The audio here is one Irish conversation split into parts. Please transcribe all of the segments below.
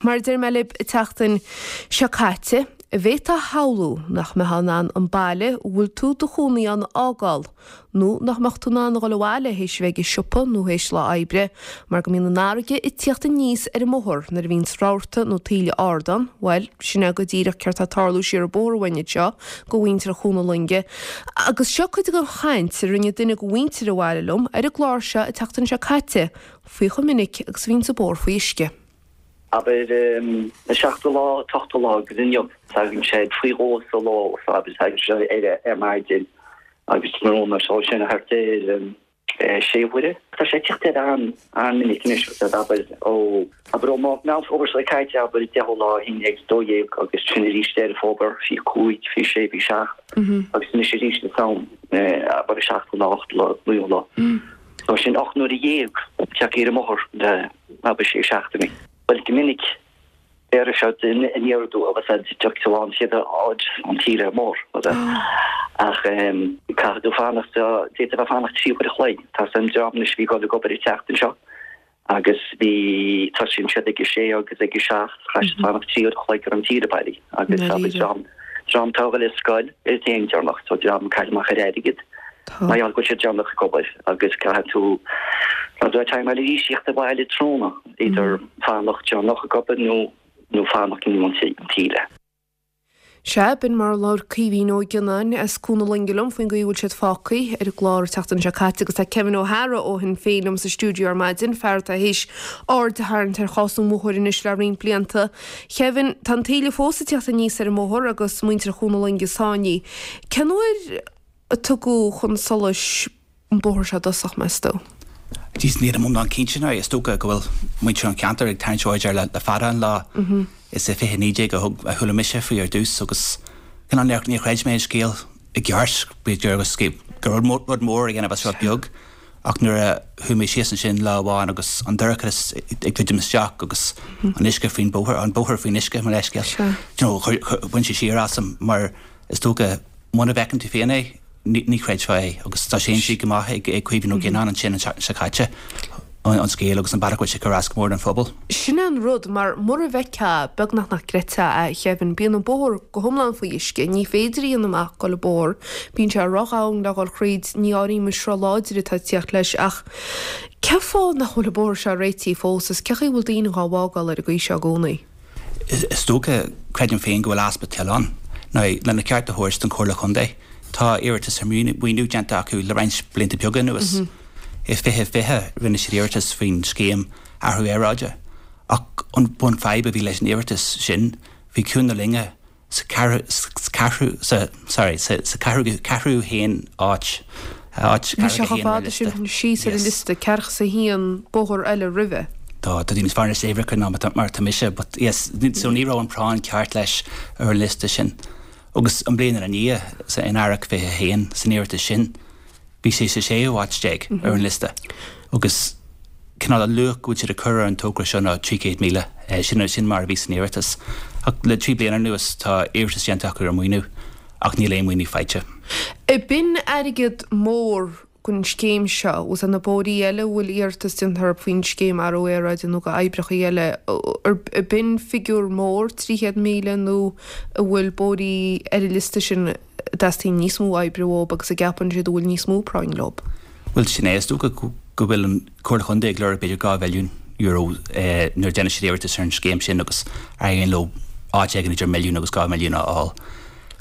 Mar a deir mé libh an tseachtain seo caite, an bhféadfá a shamhlú nach mbeifeá in ann an baile a bhfuil tú do chónaí ann a fhágáil, nó nach mbeadh tú in ann a dhul abhaile théis a bheith ag an siopa nó théis lá oibre, mar go mbíonn an fharraige ag tíocht aníos ar an mbóthar nuair a bhíonns rabharta nó taoille ard ann? Bhuel, sin é go díreach céard tá ag tarlú siar an bóthar uainn anseo go mhuintir Chú na Loinge. Agus seo cuid den chaint a rinne duine de mhuintir an bhaile liom ar an gclár seo an tseachtain seo caite faoi chomh minic agus a bhíonns an bóthar faoi uisce. Abair, an seachtú lá, an t-ochtú lá agus inniu, tagann sé faoi dhó sa ló, so abair, tagann sé ar ar maidin agus tráthnóna, so sin thart ar sé huaire. Tá sé ag tíocht air an-mhinic anois, agus abair, ó, abair ó Meán Fómhair seo caite, abair, deichiú lá, 11, 12 agus sin arís Deireadh Fómhair, 25, 26, 27 agus anois arís an t-am, abair, an seachtú lá, ochtú lá, naoú lá. So sin 8 n-uaire tagtha ar an mbóthar le abair sé seachtainí. Bhuel go minic béarfaidh siad aniar aduaidh agus iad tiocfaidh tú an chéad áit an taoille ar an mbóthar. Ach caithfidh tú fanacht, d'fhéadfá a bheith fanacht 3 uair a chloig. Tá an dream anois a bhí ag dul ag obair an tseachtain seo agus bhí, tosaíonn siad ag a sé agus ag a seacht, chaith siad fanacht 3 uair a chloig ar an taoille bailí agus abair dream, dream atá ag dul ar scoil ar an aon deireanach, so dream ag cailleadh amach ar airgead. Mar gheall go bhfuil siad deireanach ag obair agus caithfidh tú rud a timeáil arís tíocht abhaile tráthnóna, idir fanacht deireanach ag obair nó nó fanacht i ndiaidh an taoille. Sea, b'in mar a labhair Caoimhín Ó Gionnáin as Cuan na Loinge liom faoin gcaoi a bhfuil siad fágtha ar an gclár an tseachtain seo caite agus tá Kevin Ó hEadhra ó Shinn Féin liom sa stiúideo ar maidin, fear atá théis aird a tharraingt ar chás an bhóthair anois le roinnt blianta. Kevin, tá an taoille fós ag tíocht aníos ar an mbóthar agus muintir Chuan na Loinge sáinnithe. Cén uair a tugadh chun solais an bóthar seo i dtosach, meas tú? Jeez, nílim iomlán cinnte now. Is dócha go bhfuil muintir an cheantair ag tarraingt aird air le fada an lá. Is i 2019 a thug, a chuala mise faoi ar dtús agus cineál níor, níor chreid mé an scéal i gceart, b'fhéidir agus go raibh rud mór a dhéanamh as rud beag. Ach nuair a chuaigh mé síos ansin lá amháin agus an dorchadas ag druidim isteach agus an uisce faoin bóthar, an bóthar faoin uisce, mo leithscéal, you know, bhain sé siar asam mar Is dócha, muna bhfeiceann tú féin é, ní chreidfeá é. Agus tá sé insithe go maith ag Caoimhín Ó Gionnáin ansin an tseachtain seo caite, an scéal agus an bealach go bhfuil sé ag cur as go mór don phobal. Sin é an rud, mar mura bhfeicfeá, beagnach nach gcreidfeá é, a Kevin. Bíonn an bóthar go hiomlán faoi uisce, ní féidir a dhéanamh amach ag dul an bóthar, bíonn sé ródhomhain le dhul thríd, ní áirím an sruth láidir atá ag tíocht leis ach cén fáth nach bhfuil an bóthar seo réitithe fós is cén chaoi a bhfuil daoine dhá bhfágáil ar an gcaoi seo i gcónaí? Is dócha, creidim féin, go bhfuil easpa toil ann. Now, lena cheart a thabhairt don Chomhairle Chontae, tá iarratas ar mhaoiniú déanta acu le roinnt blianta beaga anuas. I 2020, rinne siad iarratas faoin scéim athrú aeráide. Ach an bhun-fhadhb a bhí leis an iarratas sin, bhí Cuan na Loinge sa ceathrú, sa, sorry, sa, sa ceathrú, ceathrú haon áit, áit Bhí sé chomh fada sin síos ar an liosta, ceathracha is a haon bóthar eile roimhe. Tá, tá tú níos fearr sna huimhreacha ná mar atá mise, but yes, so ní raibh an práinn ceart leis ar an liosta sin. Agus an bhliain ina ndiaidh, sa, in Earrach 21, san iarratas sin, Bhí sé sa séú háit ar an liosta agus cineál an luach go bhfuil siad ag cur ar an togra seo ná 300,000. Sin sin mar a bhí san iarratas. Ach le trí bliana anuas tá iarratas déanta acu ar mhaoiniú ach níl aon mhaoiniú faighte. B'in airgead mór don scéim seo. Agus na bóithrí eile a bhfuil iarratas déanta orthu faoin scéim athrú aeráide nó go oibreacha eile, b'in figiúr mór, 300,000 nó an bhfuil bóithrí ar an liosta sin a dteastaíonn níos mó oibre uathu agus a gceapann siad a bhfuil níos mó práinn leo. Bhuel, sin é. Is dócha go bhfuil an Chomhairle Chontae ag lorg b'fhéidir €2 mhilliún nuair a déanann siad iarratas ar an scéim sin agus éiríonn leo áit éigin idir milliún agus 2 mhilliún a fháil.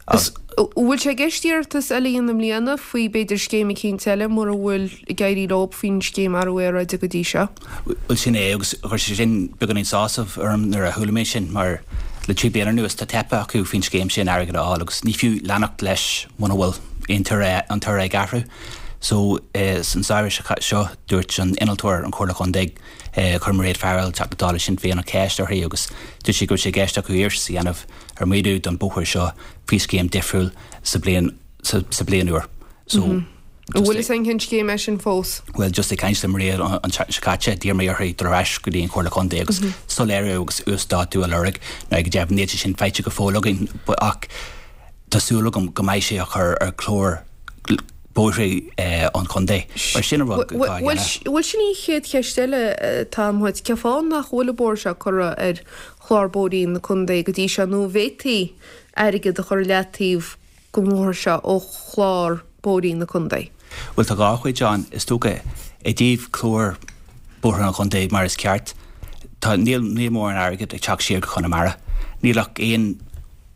An bhfuil sé i gceist iarratas eile a dhéanamh i mbliana faoi b'fhéidir scéim eicínt eile mura bhfuil ag éirí leo faoin scéim athrú aeráide go dtí seo? Bhuel sin é agus chuir sé sin beagáinín sásamh orm nuair a chuala mé sin mar le trí bliana anuas tá teipthe acu faoin scéim sin airgead a fháil agus ní fiú leanacht leis muna bhfuil aon toradh an toradh ag athrú. So san samhradh seo dúirt an innealtóir an Chomhairle Chontae chuir Mairéad Farrell, Teachta Dála Sinn Féin an cheist uirthi agus dúirt sí go raibh sé i gceist acu iarratas a dhéanamh ar mhaoiniú don bóthar seo faoi scéim difriúil sa bhliain sa bhliain úr. So An bhfuil fhios againn cén scéim é sin fós? Bhuel just ag caint le Mairéad an tseachtain seo caite d'iarr mé uirthi dul ar ais go dtí an Chomhairle Chontae agus soiléiriú agus uasdátú a lorg. Now go deimhin níl sé sin faighte go fóill againn ach tá súil agam go mbeidh sé á chur ar chlár. Bóithre an Chontae. Mar sin an rud atá á dhéanamh. Bhuel sin í an chéad cheist eile atá agam dhuit. Cén fáth nach bhfuil an bóthar seo curtha ar chlár bóithrí na contae go dtí seo nó an bhféadfaí airgead a chur i leataobh don bhóthar seo ó chlár bóithrí na contae? Bhuel tá dhá chuid ann is dócha. I dtaobh clár bóithre an chontae mar is ceart, tá, níl, níl mórán airgid ag teacht siar go Conamara. Níl ach aon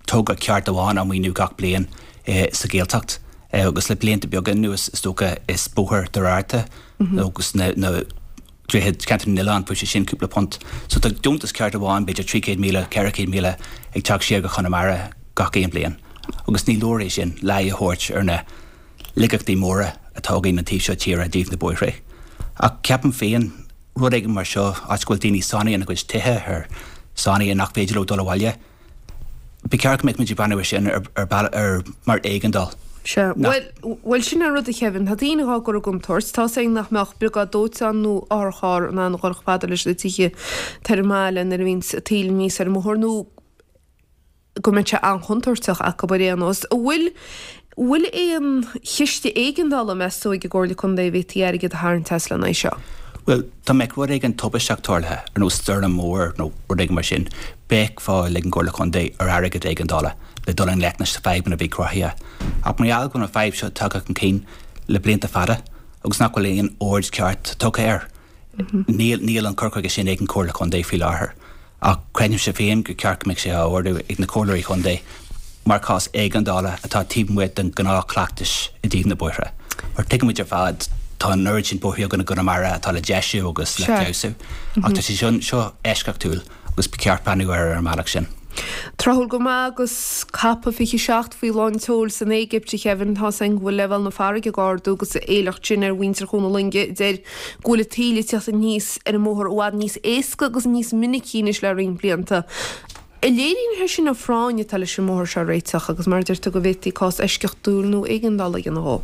togra ceart amháin á maoiniú gach bliain sa Ghaeltacht agus le blianta beaga anuas is dócha is bóthar Doire Fhatharta agus na droichid Cheantar na nOileán fuair sé sin cúpla punt. So tá deontas ceart amháin b'fhéidir 300,000, 400,000 ag teacht siar go Conamara gach aon bhliain agus ní leor é sin le aghaidh a thabhairt ar na laigeachtaí móra atá againn an taobh seo tíre i dtaobh na bóithre. Ach ceapaim féin rud éigin mar seo áit go bhfuil daoine sáinnithe ina gcuid tithe ar sáinnithe nach féidir leo dul abhaile, Ba cheart go mbeadh muid ag breathnú ar sin ar bealach ar mar éigeandáil. Sea. Bhuel, bhuel sin an rud a Kevin. Tá daoine dhá gcur i gcontúirt. Tá 's againn nach mbeadh briogáid dóiteáin nó otharcharr in ann a dhul chomh fada leis na tithe atá ar an mbaile nuair a bhíonns an taoille aníos ar an mbóthar nó go mbeadh sé an-chontúirteach acu ar aon nós. An bhfuil, bhfuil aon chiste éigeandála, meas tú, ag an gComhairle Contae a bhféadfaí airgead a tharraingt as lena aghaidh seo? Bhuel, dá mbeadh rud éigin tubaisteach tarlaithe, ar nós stoirm mhór nó rud éigin mar sin, bheadh fáil ag an gComhairle Contae ar airgead éigeandála le dul i ngleic leis na fadhbanna a bhí cruthaithe. Ach mar gheall go bhfuil an fadhb seo tagtha chun cinn le blianta fada agus nach bhfuil aon aird ceart tugtha air, níl níl an cur chuige sin ag an Chomhairle Contae faoi láthair. Ach creidimse féin gur ceart go mbeadh sé á ardú ag na Comhairleoirí Contae mar chás éigeandála atá taobh amuigh den ghnáthchleachtais i dtaobh na bóithre. Mar tuigimid ar fad, tá an oiread sin bóithre againn i gConamara atá le deisiú agus le feabhsú, ach tá sé seo eisceachtúil agus ba cheart breathnú air ar an mbealach sin. Tráthúil go maith agus COP 27 faoi lán tseoil san Éigipt, a Kevin, tá's againn go bhfuil leibhéal na farraige ag ardú agus a éileacht sin ar mhuintir Chuan na Loinge a deir go bhfuil an taoille ag teacht aníos ar an mbóthar i bhfad níos éasca agus níos minicí anois le roinnt blianta. An léiríonn sé sin an phráinn atá leis an mbóthar seo a réiteach agus mar a deir tú go bhféadfaí cás eisceachtúil nó éigeandála a dhéanamh dhó?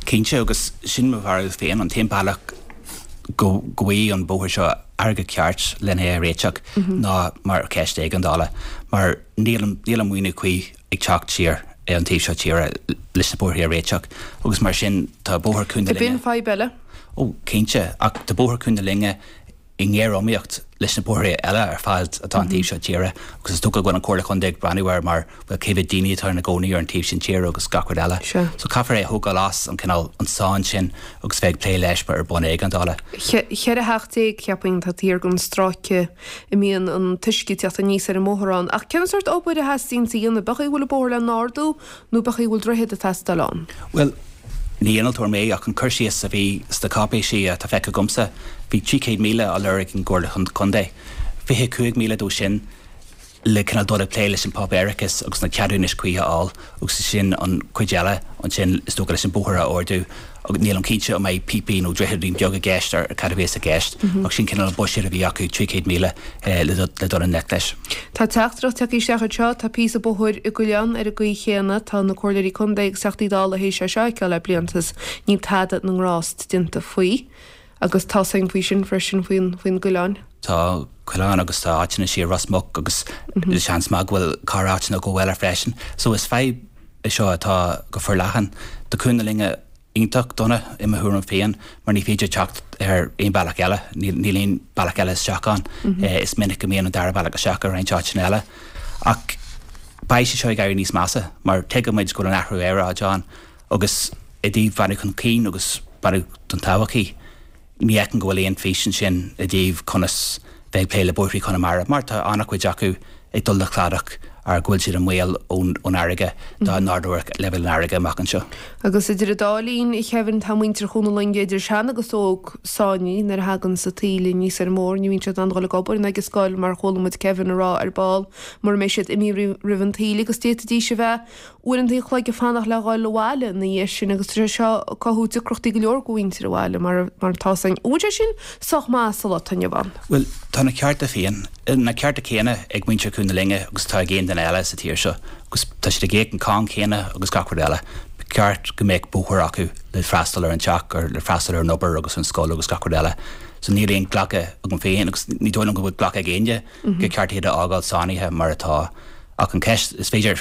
Cinnte, agus sin mo bharúil féin, an t-aon bealach go bhfaighidh an bóthar seo airgead ceart lena é a réiteach ná mar cheist éigeandála mar níl níl an maoiniú cuí ag teacht siar ar an taobh seo tíre leis na bóithre a réiteach agus mar sin tá bóthar Chuan na Linne. B'in fadhb eile. Ó cinnte, ach tá bóthar Chuan na Loinge i ngéar-iomaíocht leis na bóithre eile ar fad atá an taobh seo tíre agus is dócha go bhfuil an Chomhairle Chontae ag breathnú air mar bhuel cé mhéad daoine atá ina gcónaí ar an taobh sin tíre agus gach rud eile. So caithfear é a thógáil as an cineál an sáinn sin agus bheith ag plé leis ar bhonn éigeandála. 14 theach cheapfainn atá thiar den stráice a mbíonn an t-uisce ag teacht aníos ar an mbóthar ann. Ach cén sórt obair a theastaíonns a dhéanamh? B'é chaoi a bhfuil an bóthar le n-ardú nó b'é chaoi a bhfuil droichead ag teastáil ann? Bhuel, ní innealtóir mé ach an cur síos a bhí sna cáipéisí atá feicthe agamsa, bhí 300,000 á lorg ag an gComhairle Contae, 25,000 dó sin le cineál dul ag plé leis an páipéarachas agus na ceadúnais cuí a fháil agus sin an chuid eile ansin is dócha leis an bóthar a ardú agus nílim cinnte an mbeidh píopaí nó droicheadín beag i gceist ar cad a bheas i gceist ach sin cineál an buiséad a bhí acu, 300,000 le dul i ngleic leis. Tá teachtaireacht tagtha isteach anseo, tá píosa bóthair i gCoileán ar an gcaoi chéanna, tá na Comhairleoirí Contae agus Teachtaí Dála théis é seo a fheiceáil le blianta is níl tada na ngrást déanta faoi. Agus tá 's againn faoi sin freisin, faoin, faoin gCoileán. Tá Coileán agus tá áiteanna siar Ros Muc agus seans maith go bhfuil corr-áiteanna go eile freisin. So is fadhb é seo atá go forleathan. Tá Cuan na Loinge iontach dona i mo thuairim féin mar ní féidir teacht ar aon bealach eile, níl aon bealach eile isteach ann. Is minic go mbíonn an dara bealach isteach i roinnt áiteanna eile. Ach beidh sé seo ag éirí níos measa mar tuigimid go bhfuil an athrú aeráide ann agus i dtaobh breathnú chun cinn agus breathnú don todhchaí, ní fheicim go bhfuil aon fís ansin i dtaobh conas bheith ag plé le bóithrí Chonamara mar tá an-chuid acu ag dul le cladach ar go bhfuil siad i mbaol ón fharraige dá n-ardódh leibhéal an fharraige amach anseo. Agus idir an dá linn, a Kevin, tá muintir Chuan na Loinge, idir sean agus óg, sáinnithe nuair a thagann an taoille aníos ar an mbóthar. Ní bhíonn siad in ann dul ag obair ná ag an scoil mar a chuala muid Kevin a rá ar ball mura mbeidh siad imithe roimh an taoille agus d'fhéadfaidís a bheith uaireanta an chloig ag fanacht le dhul abhaile ina dhiaidh sin agus tá sé seo ag cothú deacrachtaí go leor do mhuintir an bhaile mar mar atá 's againn. An bhfuil sé sin sách maith sa lá atá inniu ann? Bhuel, tá na cearta féin, na cearta céanna ag muintir Chuan na Loinge agus atá ag aon duine eile sa tír seo agus tá siad ag íoc an cáin chéanna agus gach rud eile. Ba cheart go mbeadh bóthar acu le freastal ar an teach, ar le freastal ar an obair agus an scoil agus gach rud eile. So níl aon ghlacadh agam féin agus ní dóigh liom go bhfuil glacadh ag éinne gur ceart iad a fhágáil sáinnithe mar atá. Ach an cheist, is féidir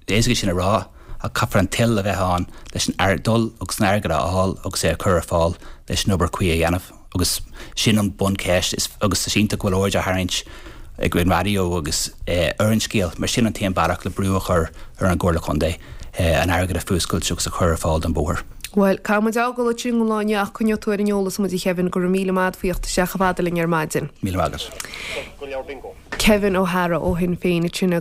éasca sin a rá. Ach caithfear an toil a bheith ann leis an airgead dul agus an airgead a fháil agus é a chur ar fáil leis an obair cuí a dhéanamh. Agus sin an buncheist is agus is iontach go bhfuil aird á tharraingt ag an raidió agus ar an scéal mar sin an t-aon bealach le brú a chur ar an gComhairle Contae an airgead a fuascailt agus a chur ar fáil don bhóthar. Bhuel, caithfidh muid fhágáil ansin don lá inniu ach coinneoidh tú ar an eolas muid a Kevin, go raibh míle maith agat faoi theacht isteach chomh fada linn ar maidin. Míle maith agat. Kevin O'Hara ó Shinn Féin ansin.